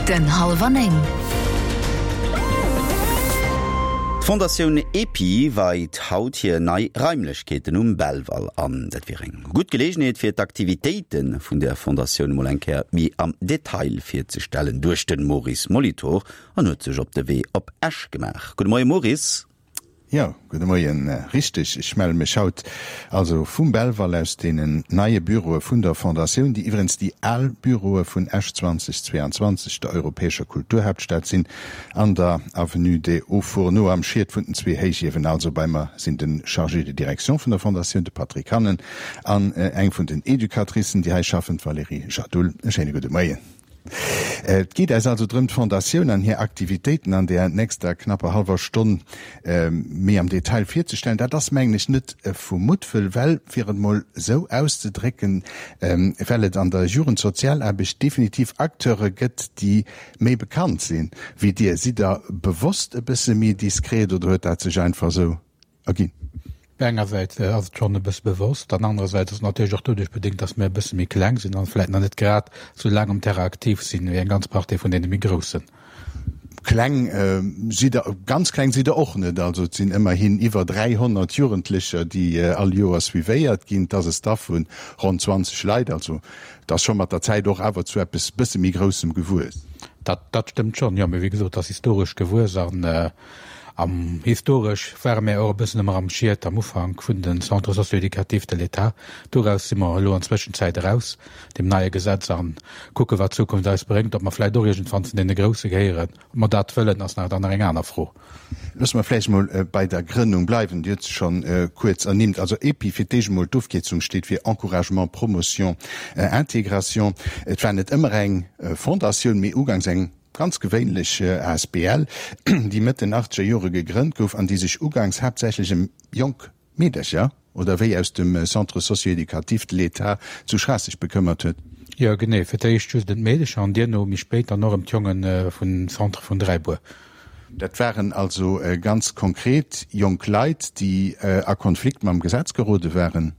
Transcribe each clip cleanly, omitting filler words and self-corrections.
Minutten hallwer 9. D'Fondatioun EPI weit haut hir nei Raimlechkeeten um Belval an. Dat wier eng gutt Geleegenheet fir d'Aktivitéite vun der Fondatioun emol eng Kéier méi am Detail virzestellen, duecht de Maurice Molitor an huet sech op de Wee op Esch gemaach. Gudde Moie Maurice. Jo, gudde Moien. Richteg, ech melle mech haut also vum Belval aus deenen neie Büroe vun der Fondatioun, déi iwwerens déi al Büroe vun Esch 2022, der europäescher Kulturhaaptstad sinn, an der Avenue des Hauts-Fourneaux am Schiet vun den zwee Héichiewen. Also bei mer sinn de Chargé de direction vun der Fondatioun, de Patrick Hannen, an eng vun den Educatricen, déi hei schaffen, d'Valérie Jadoul. E schéine gudde Moien. Et geet äis also drëm, d'Fondatioun an hir Aktivitéiten an där nächster knapper hallwer Stonn méi am Detail virzestellen. Dat ass, mengen ech, net vu Muttwëll, well, fir et mol esou auszedrécken, well et an der Jugendsozialaarbecht definitiv Acteure gëtt, déi méi bekannt sinn wéi Dir. Sidd Der bewosst e bësse méi diskret oder huet dat sech einfach esou erginn? Engersäits ass et schonn e bësse bewosst an anerersäits ass et natierlech och doduerch bedéngt, datt mir e bësse méi kleng sinn an vläicht nach net grad esou laang um Terrain aktiv sinn wéi eng ganz Partie vun deene méi groussen. Kleng sidd Der, ganz kleng sidd Der och net. Also et sinn ëmmerhin iwwer 300 Jugendlecher, déi all Joer suivéiert ginn. Et ass e Staff vu ronn 20 Leit. Also et ass scho mat der Zäit och awer zu eppes bësse méi Groussem gewuess. Dat, dat stëmmt schonn, jo. Mee wéi gesot, et ass historesch gewuess an Am historesch ware mär och e bëssen ëmmer am Schiet am Ufank vun de Centres socio-éducatifs de l'État. Doraus si mer elo an Zwëschenzäit eraus, deem neie Gesetz, a kucke wat d'Zukunft eis bréngt. Ob mer vläicht och iergendwann zu deene Grousse gehéieren, ob mer dat wëllen, ass nach dann nach eng aner Fro. Loosse mer vläicht emol bei der Grënnung bleiwen. Dir hutt se schonn kuerz ernimmt. Also EPI, fir d'éischt emol, d'Ofkierzung steet fir Encouragement, Promotion, Intégration. Et war net ëmmer eng Fondatioun, mee uganks eng Ganz gewéinlech asbl, déi Mëtt den achtzeger Jore gegrënnt gouf an déi sech uganks haaptsächlech ëm jonk Meedercher, oder wéi aus dem Centre socio-éducatif de l'État zu Schraasseg bekëmmert huet. Jo, genee. Fir d'éischt just ëm d'Meedecher an duerno méi spéit dann och ëm d'Jonge vum Centre vun Dräibuer. Dat waren also ganz konkret jonk Leit, déi a Konflikt mam Gesetz gerode waren?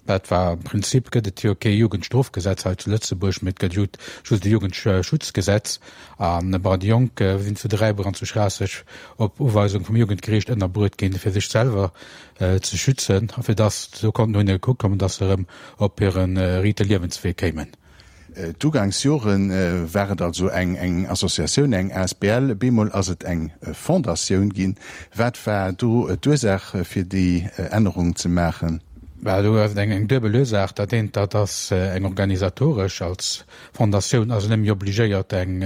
Dat war, am Prinzip gëtt et jo kee Jugendstrofgesetz hei zu Lëtzebuerg, mee et gëtt just e Jugendschutzgesetz. An bon, déi Jonk sinn zu Dräibuer an zu Schraasseg op Uweisung vum Jugendgeriicht ënnerbruet ginn, fir sech selwer ze schützen a fir dass, esou konnten no hinne gekuckt kommen, dass se erëm op hire riite Liewenswee kéimen. D'Ugangsjore war et also eng Associatioun, eng asbl, bemol ass et eng Fondatioun ginn. Wat war do d'Ursaach fir déi Ännerung ze maachen? Bah, do ass et eng duebel Ursaach. Dat eent, dat ass eng organisatoresch. Als Fondatioun ass een net méi obligéiert eng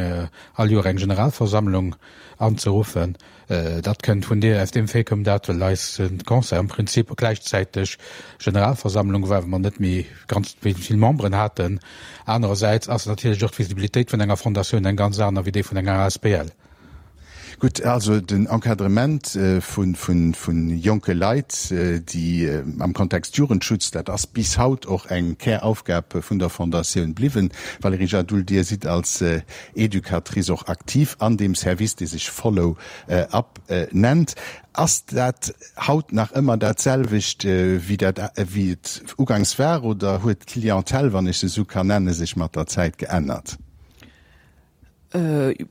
all Joer eng Generalversammlung anzeruffen. Dat kënnt vun deer, aus deem Fait koum dat, well eis Conseil am Prinzip gläichzäiteg Generalversammlung war, well mer net méi ganz vill Memberen haten. Anerersäits ass natierlech och d'Visibilitéit vun enger Fondatioun eng ganz aner wéi déi vun enger asbl. Gutt, also den Encadrement vu jonke Leit, déi am Kontext Jugendschutz, dat ass bis haut och eng Käraufgab vun der Fondatioun bliwwen. Valerija Jadoul, Dir sidd als Educatrice och aktiv an deem Service, dee sech Follow Up nennt. Ass dat haut nach ëmmer dat selwecht, wéi dat, wéi et ugangs war, oder huet d'Clientèle, wann ech se esou kann nennen, sech mat der Zäit geännert?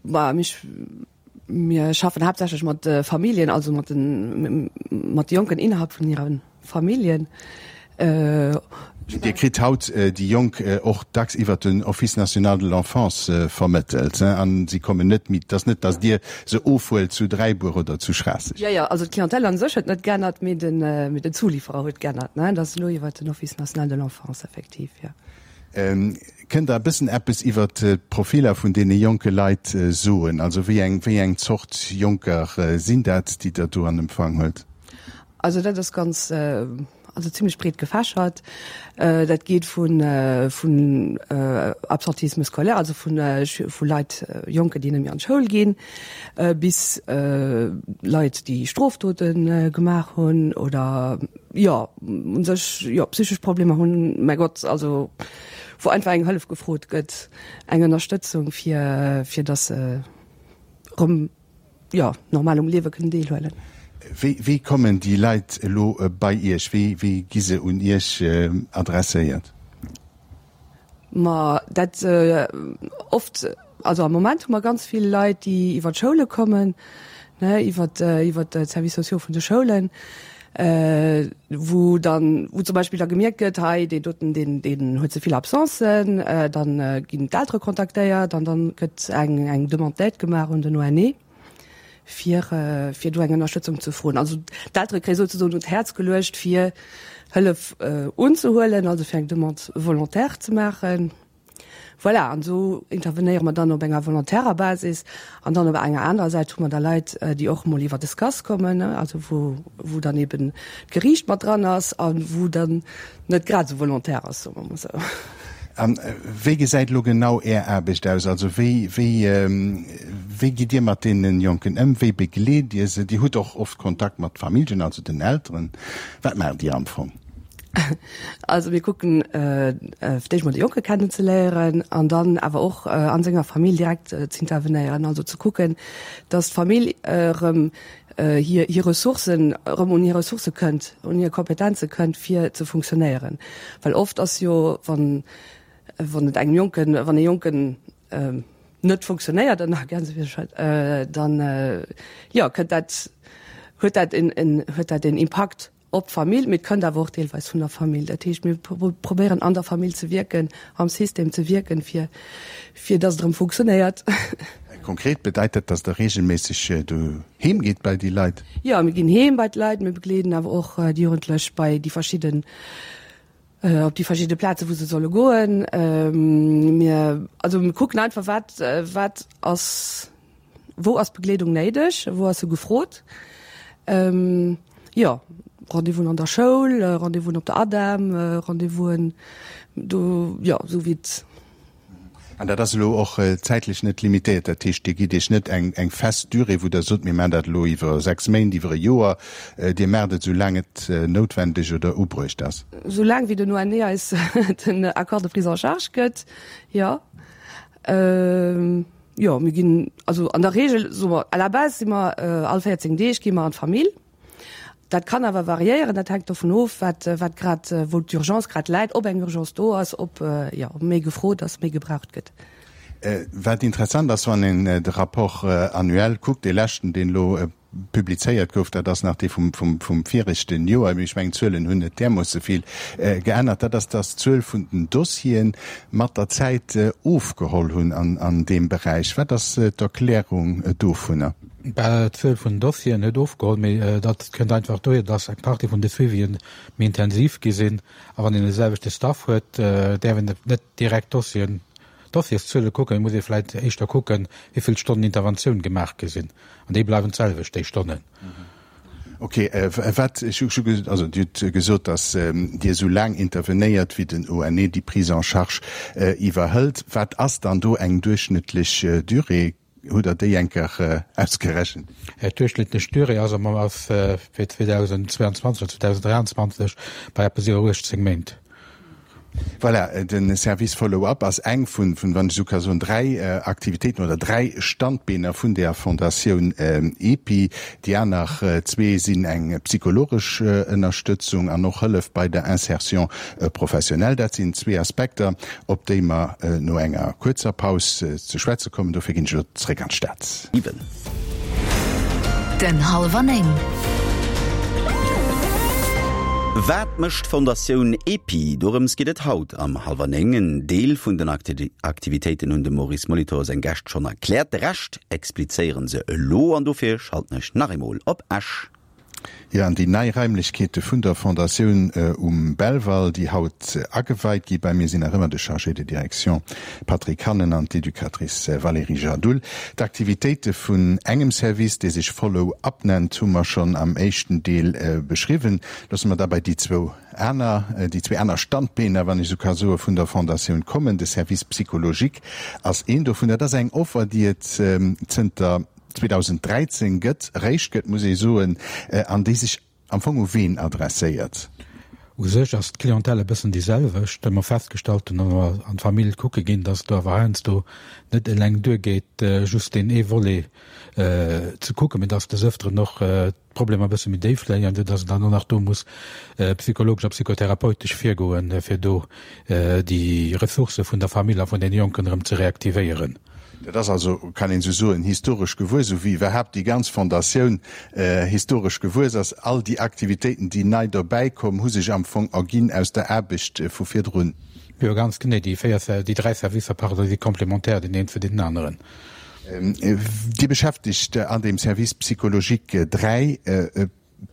Bah, mich, mir schaffen haaptsächlech mat Familljen, also mat den, mat de Jonken innerhalb vun hiren Familljen. Dir kritt haut déi Jonk och dacks iwwer den Office national de l'enfance vermëttelt, a si kommen net méi, et ass net, datt Dir se ofhuelt zu Dräibuer oder zu Schraasseg. Jo, jo, also d'Clientèle an sech huet net geännert, mee den, mee den Zulieferer huet geännert, ne? Dat ass elo iwwer den Office national de l'enfance effektiv, jo. Kënnt Der e bëssen eppes iwwer d'Profiler vun deene jonke Leit soen? Also wéi eng, wéi eng Zort Jonker sinn dat, déi Der do an Empfang huelt? Also dat ass ganz, also zimlech breet gefächert. Dat geet vun, vun Absentisme scolaire, also vun, vu Leit, Jonken, déi net méi an d'Schoul ginn, bis Leit, déi Strofdote gemaach hunn oder, jo, u sech, jo, psychesch Problemer hunn, mäi Gott, also wou einfach eng Hëllef gefrot gëtt, eng Ënnerstëtzung, fir, fir datt se erëm jo, normal um Liewe kënnen deelhuelen. Wéi, wéi kommen déi Leit elo bei Iech? Wéi, wéi gi se un Iech adresséiert? Ma dat oft. Also am Moment hu mer ganz vill Leit, déi iwwer d'Schoule kommen, ne, iwwer iwwer d'Services sociaux vun de Schoulen, wou dann, wou zum Beispill da gemierkt gëtt, hei deen doten, deen deen huet ze vill Absencen, dann ginn d'Eltere kontaktéiert an dann gëtt eng eng Demande d'aide gemaach un den ONE, fir fir do eng Ënnerstëtzung ze froen. Also d'Eltere kréie souzesoen un d'Häerz geluecht, fir Hëllef unzehuelen, also fir eng Demande volontaire ze maachen. Voilà, an esou intervenéiere mer dann op enger volontärer Basis. An dann op enger anerer Säit hu mer da Leit, déi och emol iwwer de SCAS kommen, also wou, wou dann eben d'Geriicht mat dran ass a wou dann net grad esou volontär ass, soe mer emol esou. A wéi gesäit elo genau Är Aarbecht aus? Also wéi, wéi, wéi gitt Dir mat deene Jonken ëm? Wéi begleet Dir se? Dir hutt och oft Kontakt mat Familljen, also den Elteren. Wat maacht Dir am Fong? Also mir kucken fir d'éischt mol de Jonke kennenzeléieren an dann awer och a senger Famill direkt z'intervenéieren, also ze kucken, datt d'Famill erëm hir hir Ressourcen, erëm un hir Ressourcë kënnt, un hir Kompetenze kënnt fir ze funktionéieren. Well oft ass jo, wann wann et engem Jonken, wann e Jonken net funktionéiert, ënner Gänsefüßchen, dann jo kënnt dat, huet dat en en huet dat en Impakt Op d'Famill, mee et kënnt awer och deelweis vun der Famill. Dat heescht, mir probéieren an der Famill ze wierken, am System ze wierken, fir, fir dass et erëm funktionéiert. Konkret bedeit dat, dass Der reegelméisseg doheem gitt bei déi Leit? Jo, mir ginn heem bei d'Leit. Mir begleeden awer och déi Jugendlech bei déi verschidden, op déi verschidde Plaze wou se solle goen. Mir, also mir kucken einfach, wat, wat ass, Wou ass Begleedung néideg? Wou ass se gefrot? Jo, Rendez-vousen an der Schoul, Rendez-vousen op der ADEM, Rendez-vousen do, jo, esou wéi et. An dat ass elo och zäitlech net limitéiert? Dat heescht, Dir gitt Iech net eng eng fest Durée, wou Der sot, mir maachen dat elo iwwer 6 Méint, iwwer e Joer. Dir maacht et esou laang et noutwendeg oder ubruecht ass? Esou laang wéi den ONE eis den Accord de prise en charge gëtt, jo. Jo, mir ginn, also an der Regel, soe mer, à la base si mer all 14 Deeg gi mer an d'Famill. Dat kann awer variéieren, dat hänkt dovun of, wat, wat grad, wou d'Urgence grad läit, ob eng Urgence do ass, ob, jo, ob méi gefrot ass, méi gebraucht gëtt. Wat interessant ass, wann een de Rapport annuel kuckt, dee leschten, deen elo publizéiert gouf, dat ass nach dee vum, vum, vum viregten Joer, mee ech mengen, d'Zuelen hunn net därmoosse vill geännert, dat ass, dass d'Zuel vun den Dossiere mat der Zäit ofgeholl hunn an, an deem Beräich. Wat ass d'Erklärung dovunner? Bah, d'Zuel vun den Dossieren huet ofgeholl, mee dat kënnt einfach dohier, dass eng Partie vun de Suivien méi intensiv gi sinn. A wann een de selwechte Staff huet, däerf een net direkt d'Dossieren, d'Dossierszuele kucken, et muss ee vläicht éischter kucken, wéi vill Stonnen Interventioun gemaach gi sinn. An déi bleiwen d'selwecht, déi Stonnen. Ok, wat, ech hu also Dir hutt gesot, datt Dir esou laang intervenéiert, wéi den ONE déi Prise en charge iwwerhëlt. Wat ass dann do eng duerchschnëttlech Durée? Hutt Der déi eng Kéier ausgerechent? D'duerchschnëttlech Durée ass am ass fir 2022 oder 2023 bei eppes iwwer 18 Méint. Voilà, de Service Follow-up ass eng vun, wann ech esou ka soen, dräi Aktivitéiten oder dräi Standbeener vun där Fondatioun EPI. Déi aner zwee sinn eng psychologesch Ënnerstëtzung an och Hëllef bei der Insertion professionnelle. Dat sinn zwee Aspekter, op déi mer no enger kuerzer Paus ze schwätze kommen. Dofir ginn ech elo zréck an d'Stad. 7. Den Halwer 9. Wat mécht d'Fondatioun EPI? Dorëms geet et haut am Halwer 9. En Deel vun den Aktivitéiten hunn dem Maurice Molitor seng Gäscht schonn erkläert. De Rescht explizéieren se elo an dofir schalten ech nach eemol op Esch. Jo, an déi nei Raimlechkeete vun der Fondatioun um Belval, déi haut ageweit gi. Bei mir sinn nach ëmmer de Chargé de direction Patrick Hannen an d'Educatrice Valérie Jadoul. D'Aktivitéite vun engem Service, dee sech Follow Up nennt, hu mer schonn am éischten Deel beschriwwen. Loosse mer da bei déi zwou aner, déi zwee aner Standbeener, wann ech esou ka soen, vun der Fondatioun kommen. De Service psychologique ass een dovun. Dat ass eng Offer, déi et zënter 2013 gëtt, eréischt gëtt, muss ee soen, an déi sech am Fong u ween adresséiert? U sech ass d'Clientèle e bëssen déi selwecht, well mer festgestallt hunn, wa mer an d'Famill kucke ginn, dass et do awer heiansdo net eleng duergeet, just deen ee Volet ze kucken, mee dass des Ëfteren och d'Problemer e bësse méi déif léien, esou dass een dann och nach do muss psychologesch a psychotherapeutesch virgoen, fir do déi Ressourcë vun der Famill a vun deene Jonken erëm ze reaktivéieren. Dat ass also, kann een esou soen, historesch gewuess, esou wéi iwwerhaapt déi ganz Fondatioun historesch gewuess ass. All déi Aktivitéiten, déi nei dobäi komm, hu sech am Fong erginn aus der Aarbecht vu virdrun. Jo, ganz genee. Déi véier, déi dräi Servicer, pardon, si komplementär deen een zu deenen aneren. Dir beschäftegt an deem Service psychologique dräi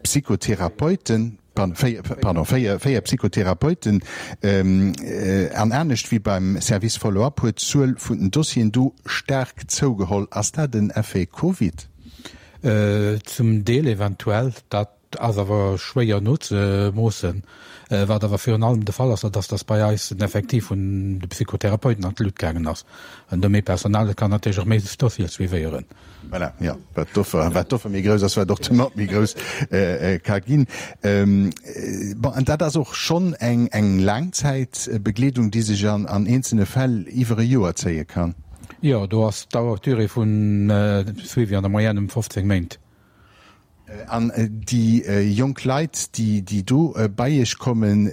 Psychotherapeuten, pardon, véier Psychotherapeuten. An anescht wéi beim Service Follow-up huet d'Zuel vun den Dossieren do staark zougeholl. Ass dat en Effet Covid? Zum Deel eventuell. Dat ass awer schwéier nozemoossen. Wat awer virun allem de Fall ass, dat ass, datt bei eis den Effektiv vun de Psychotherapeuten an d'Lut gaangen ass. An do méi Personal, dat kann natierlech och méi Dossiere suivéieren. Voilà, jo, wat d'Offer, wat d'Offer méi grouss ass, wat och d'Demande méi grouss ka ginn. Bon, an dat ass och schonn eng, eng Laangzäitbegleedung, déi sech an, an eenzelne Fäll iwwer e Joer zéie kann. Jo, do ass d'Dauer, d'Durée vun Suivi an der Moyenne ëm 15 Méint. An déi jonk Leit, déi do bei Iech kommen,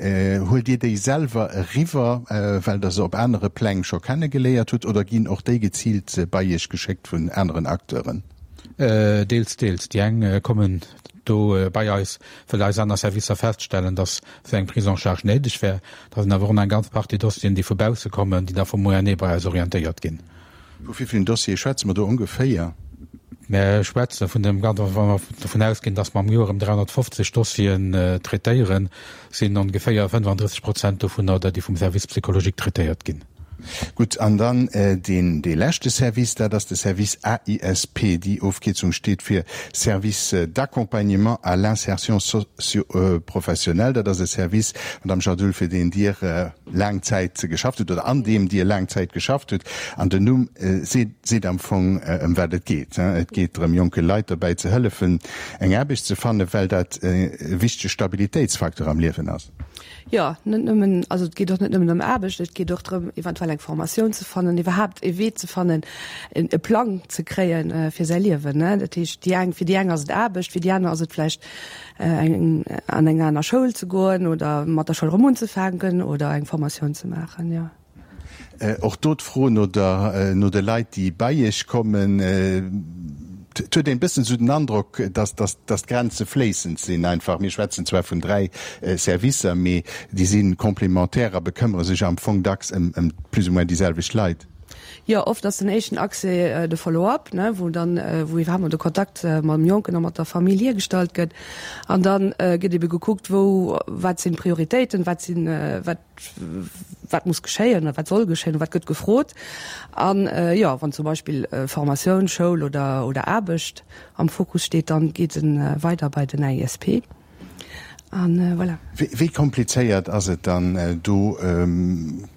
huelt Dir déi selwer eriwwer, well Der se op anere Pläng scho kennegeléiert hutt, oder ginn och déi geziilt bei Iech geschéckt vun aneren Acteuren? Deels, deels. Déi eng kommen do bei eis, well eis aner Servicer feststellen, datt esou eng Prise en charge néideg wär. Da sinn awer och nach eng ganz Partie Dossieren, déi vu bausse kommen, déi da vum ONE bei eis orientéiert ginn. Vu wéi villen Dossiere schwätze mer do ongeféier? Mer schwätze vun dem, wa mer dovun ausginn, datt mer am Joer ëm 350 Dossieren traitéieren, sinn ongeféier 35 Prozent dovunner der, déi vum Service psychologique traitéiert ginn. Gutt, an dann deen, dee leschte Service, dat ass de Service AISP. Déi Ofkierzung steet fir Service d'accompagnement à l'insertion socio-professionnelle. Dat ass e Service, Madame Jadoul, fir deen Dir laang Zäit geschafft hutt oder an deem Dir laang Zäit geschafft hutt. An den Numm seet seet am Fong, ëm wat et geet. Et geet drëm, jonke Leit dobäi ze hëllefen, eng Aarbecht ze fannen, well dat e wichtege Stabilitéitsfacteur am Liewen ass. Jo, net nëmmen, also et geet och net nëmmen ëm Aarbecht, et geet och drëm, eventuell eng Formatioun ze fannen, iwwerhaapt e Wee ze fannen, e Plang ze kréien fir säi Liewen. Dat heescht, déi eng, fir déi eng ass et Aarbecht, fir déi aner ass et vläicht eng an eng aner Schoul ze goen oder mat der Schoul erëm unzefänken oder eng Formatioun ze maachen, jo. Och do d'Fro no der, no de Leit, déi bei Iech kommen. Et huet een e bëssen esou den Androck, dass, dass, dass d'Grenze fléissend sinn einfach. Mir schwätzen zwar vun dräi Servicer, mee déi si complémentaire a bekëmmere sech am Fong dacks ëm, ëm plus ou moins déi selwecht Leit. Jo, oft ass den éischten Accès de Follow-up, ne, wou dann, wou iwwerhaapt mol de Kontakt mam Jonken a mat der Famill hiergestallt gëtt. An dann gëtt ebe gekuckt, wou, wat sinn d'Prioritéiten, wat sinn, wat, wat muss geschéien oder wat soll geschéien, wat gëtt gefrot. An jo, wann zum Beispill Formatioun, Schoul oder, oder Aarbecht am Fokus steet, dann geet e weider bei den AISP. An voilà. Wéi komplizéiert ass et dann, do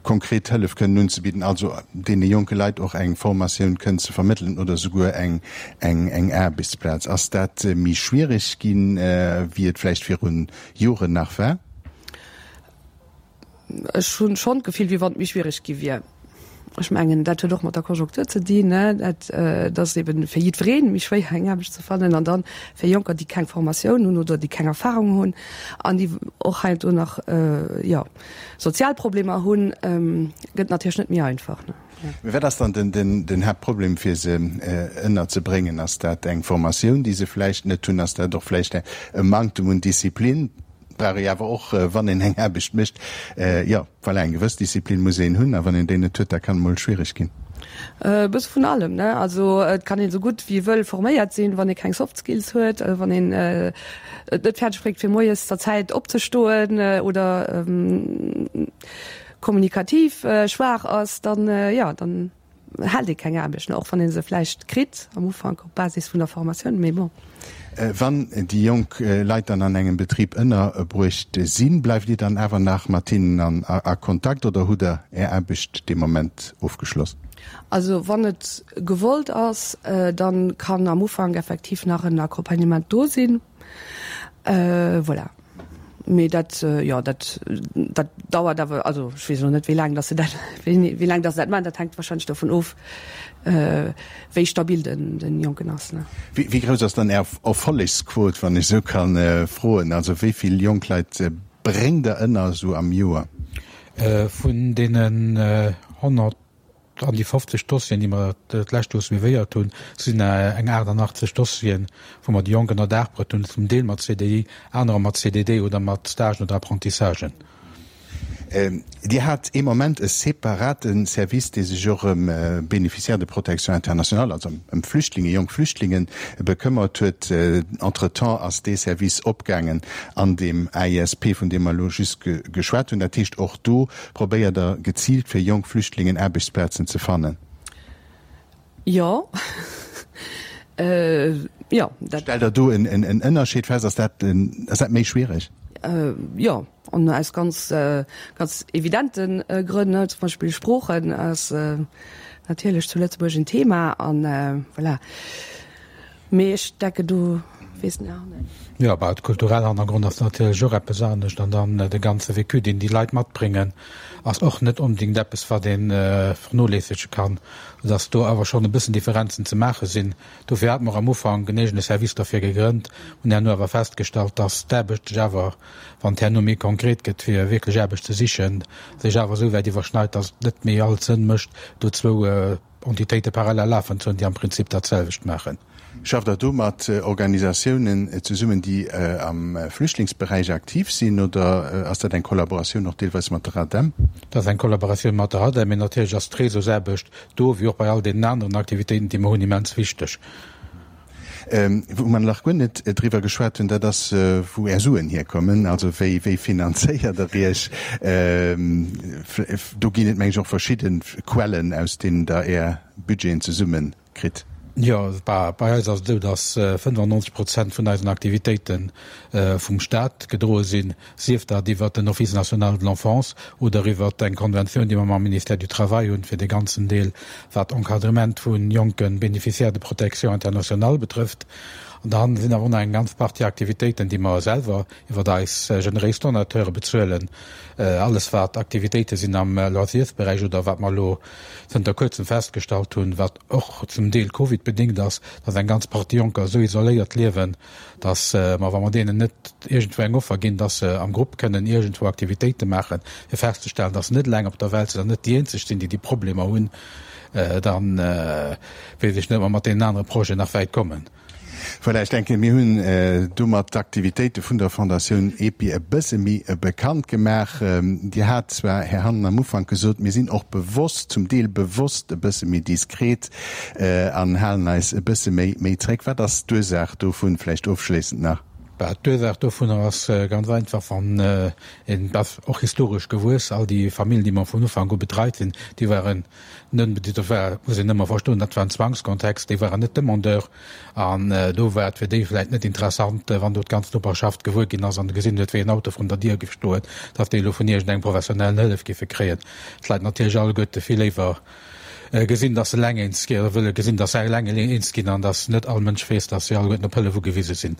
konkret Hëllef kënnen unzebidden, also deene jonke Leit och eng Formatioun kënnen ze vermëttelen oder souguer eng Aarbechtsplaz? Ass dat méi schwiereg ginn, wéi et vläicht viru Joren nach war? Ech hunn schonn d'Gefill, wéi wann et méi schwiereg gi wier. Ech mengen, dat huet och mat der Konjunktur ze dinn, ne, dat et ass eben fir jiddweree méi schwéier eng Aarbecht ze fannen an dann fir Jonker, déi keng Formatioun hunn oder déi keng Erfahrung hunn an déi och heiansdo nach, jo, sozial Problemer hunn, gëtt natierlech net méi einfach, ne. Mee wat ass dann den Haaptproblem fir se ënnerzebréngen? Ass dat eng Formatioun, déi se vläicht net hunn? Ass dat och vläicht e Manktem un Disziplin? Brauch ee awer och, wann een eng Aarbecht mécht. Jo, voilà, eng gewëss Disziplin muss een hunn, a wann een déi net huet, da kann et mol schwiereg ginn. E bësse vun allem, ne? Also et kann een esou gutt wéi ee wëll forméiert sinn, wann ee keng Soft Skills huet, wann een et net fäerdeg bréngt fir moies zur Zäit opzestoen oder kommunikativ schwaach ass, dann, jo, dann hält ee keng Aarbecht, och wann ee se vläicht kritt am Ufank op Basis vun der Formatioun, mee bon. Wann déi jonk Leit dann an engem Betrib ënnerbruecht sinn, bleift Dir dann awer nach mat hinnen a Kontakt oder hutt Der Är Aarbecht dee Moment ofgeschloss? Also wann et gewollt ass, dann kann am Ufank effektiv nach en Accompagnement do sinn. Voilà. Mee dat, jo, dat, dat dauert awer, also ech weess elo net, wéi laang dass se dat, wéi laang dass se dat maachen. Dat hänkt wahrscheinlech dovun of, wéi stabil den, den Jonken ass, ne. Wéi, wéi grouss ass dann Är Erfollegsquot, wann ech esou kann froen? Also wéi vill jonk Leit bréngt Der ënner esou am Joer? Vun deenen 100. An déi 50 Dossieren, déi mer d'lescht Joer suivéiert hunn, sinn eng 88 Dossieren, wou mer déi Jonk ënner Daach bruet hunn, zum Deel mat CDI, anerer mat CDD oder mat Stagen oder Apprentissagen. Dir hat ee Moment e separate Service, dee sech och ëm Bénéficiaires de protection internationale, also ëm Flüchtlinge, jonk Flüchtlinge bekëmmert huet. Entretemps ass dee Service opgaangen an deem AISP, vun deem mer elo just geschwat hunn. Dat heescht, och do Probéiert der geziilt fir jonk Flüchtlingen Aarbechtsplazen ze fannen? Jo. Jo, dat. Stellt der do en Ënnerscheed fest? Ass dat, ass dat méi schwiereg? Jo, an aus ganz, ganz evidente Grënn, zum Beispill Sproochen ass natierlech zu Lëtzebuerg en Thema an voilà. Mee ech denken do weess den Här Hanne. Jo, bah, de kulturelle Hannergrond ass natierlech och eppes anescht an dann de ganze Vécu, deen déi Leit matbréngen, ass och net onbedéngt eppes, wat ee vernoléissege kann, soudass do awer schonn e bëssen Differenzen ze maache sinn. Dofir hate mer am Ufank en eegene Service derfir gegrënnt, hunn herno awer festgestallt, dass d'Aarbecht sech awer, wann et herno méi konkret gëtt, fir wierklech Aarbecht ze sichen, sech awer esou wäit iwwerschneit, dass et net méi all Sënn mécht, do zwou Entitéite parallel lafen ze hunn, déi am Prinzip dat selwecht maachen. Schafft Der do mat Organisatiounen zesummen, déi am Flüchtlingsberäich aktiv sinn, oder ass dat eng Kollaboratioun och deelweis mat der ADEM? Dat ass eng Kollaboratioun mat der ADEM, mee natierlech ass d'Réseausaarbecht do, wéi och bei all deenen aneren Aktivitéiten, déi mer hunn, immens wichteg. Wou mer nach guer net driwwer geschwat hunn, dat ass, wou Är Suen hierkommen. Also wéi, wéi finanzéiert Der Iech? Do ginn et, meng ech, och verschidde Quellen, aus deenen Der Är Budgeten zesumme kritt. Jo, bei eis ass et esou, datt 95 Prozent vun eisen Aktivitéite vum Staat gedroe sinn. sief dat iwwert den Office national de l'enfance oder iwwert eng Konventioun, déi mer mam Ministère du Travail hunn, fir dee ganzen Deel, wat Encadrement vu jonke Bénéficiaires de protection internationale betrëfft. An dann sinn awer och nach eng ganz Partie Aktivitéiten, déi mer selwer iwwert eis generéis Donateure bezuelen, alles wat Aktivitéite sinn am Loisirsberäich oder wat mer elo zënter kuerzem festgestallt hunn, wat och zum Deel covidbedéngt ass, dass eng ganz Partie Jonker esou isoléiert liewen, dass mer, wa mer deenen net iergendwou eng Offer ginn, dass se am Grupp kënnen iergendwou Aktivitéite maachen, fir festzestellen, dass se net eleng op der Welt sinn an net déi eenzeg sinn, déi déi Problemer hunn, da weess ech net, ob mer mat deenen anere Projeten nach wäit kommen. Voilà, ech denken, mir hunn domat d'Aktivitéite vun der Fondatioun EPI e bësse méi bekannt gemaach. Dir hat zwar, Här Hannen, am Ufank gesot, mir sinn och bewosst, zum Deel bewosst e bësse méi diskret, An halen eis e bësse méi méi zréck. Wat ass d'Ursaach dovun, vläicht ofschléissend nach? Bah, d'Ursaach dovunner ass ganz einfach, wann een, dat ass och historesch gewuess, all déi Familljen, déi mer vun Ufank u betreit hunn, déi waren net, dat war, muss een ëmmer verstoen, dat war en Zwangskontext, déi waren net Demandeur. An do war et fir déi vläicht net interessant, wann do d'ganz Noperschaft gewuer ginn ass an gesinn huet, wéi en Auto vrun der Dier géif stoen, datt déi elo vun iergendengem professionellen Hëllef géife kréien. D'Leit natierlech alleguerte vill léiwer gesinn, dass se eleng eens ginn, oder wëlle gesinn, dass se eleng eens ginn an dass net all Mënsch weess, dass si alleguerten op Hëllef ugewise sinn.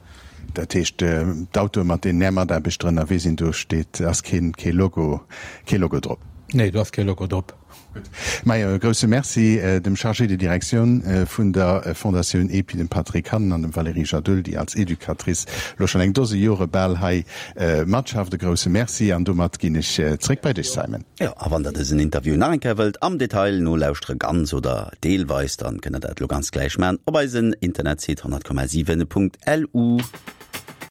Dat heescht, d'Autoe mat deenen Är Mataarbechter ënnerwee sinn, do steet, ass keen, kee Logo, kee Logo drop? Nee, do ass kee Logo drop. Gutt. Majo, e grousse Merci dem Chargé de direction vun der Fondatioun EPI, dem Patrick Hannen, an dem Valérie Jadoul, déi als Educatrice elo schonn eng Dose Jore bal hei matschafft. E grousse Merci an domat ginn ech zréck bei dech, Simon. Jo, a wann der dësen Interview nach eng Kéier wëllt am Detail nolauschtere, ganz oder deelweis, dann kënnt der dat elo ganz gläich man op eisen Internetsite 100,7.lu.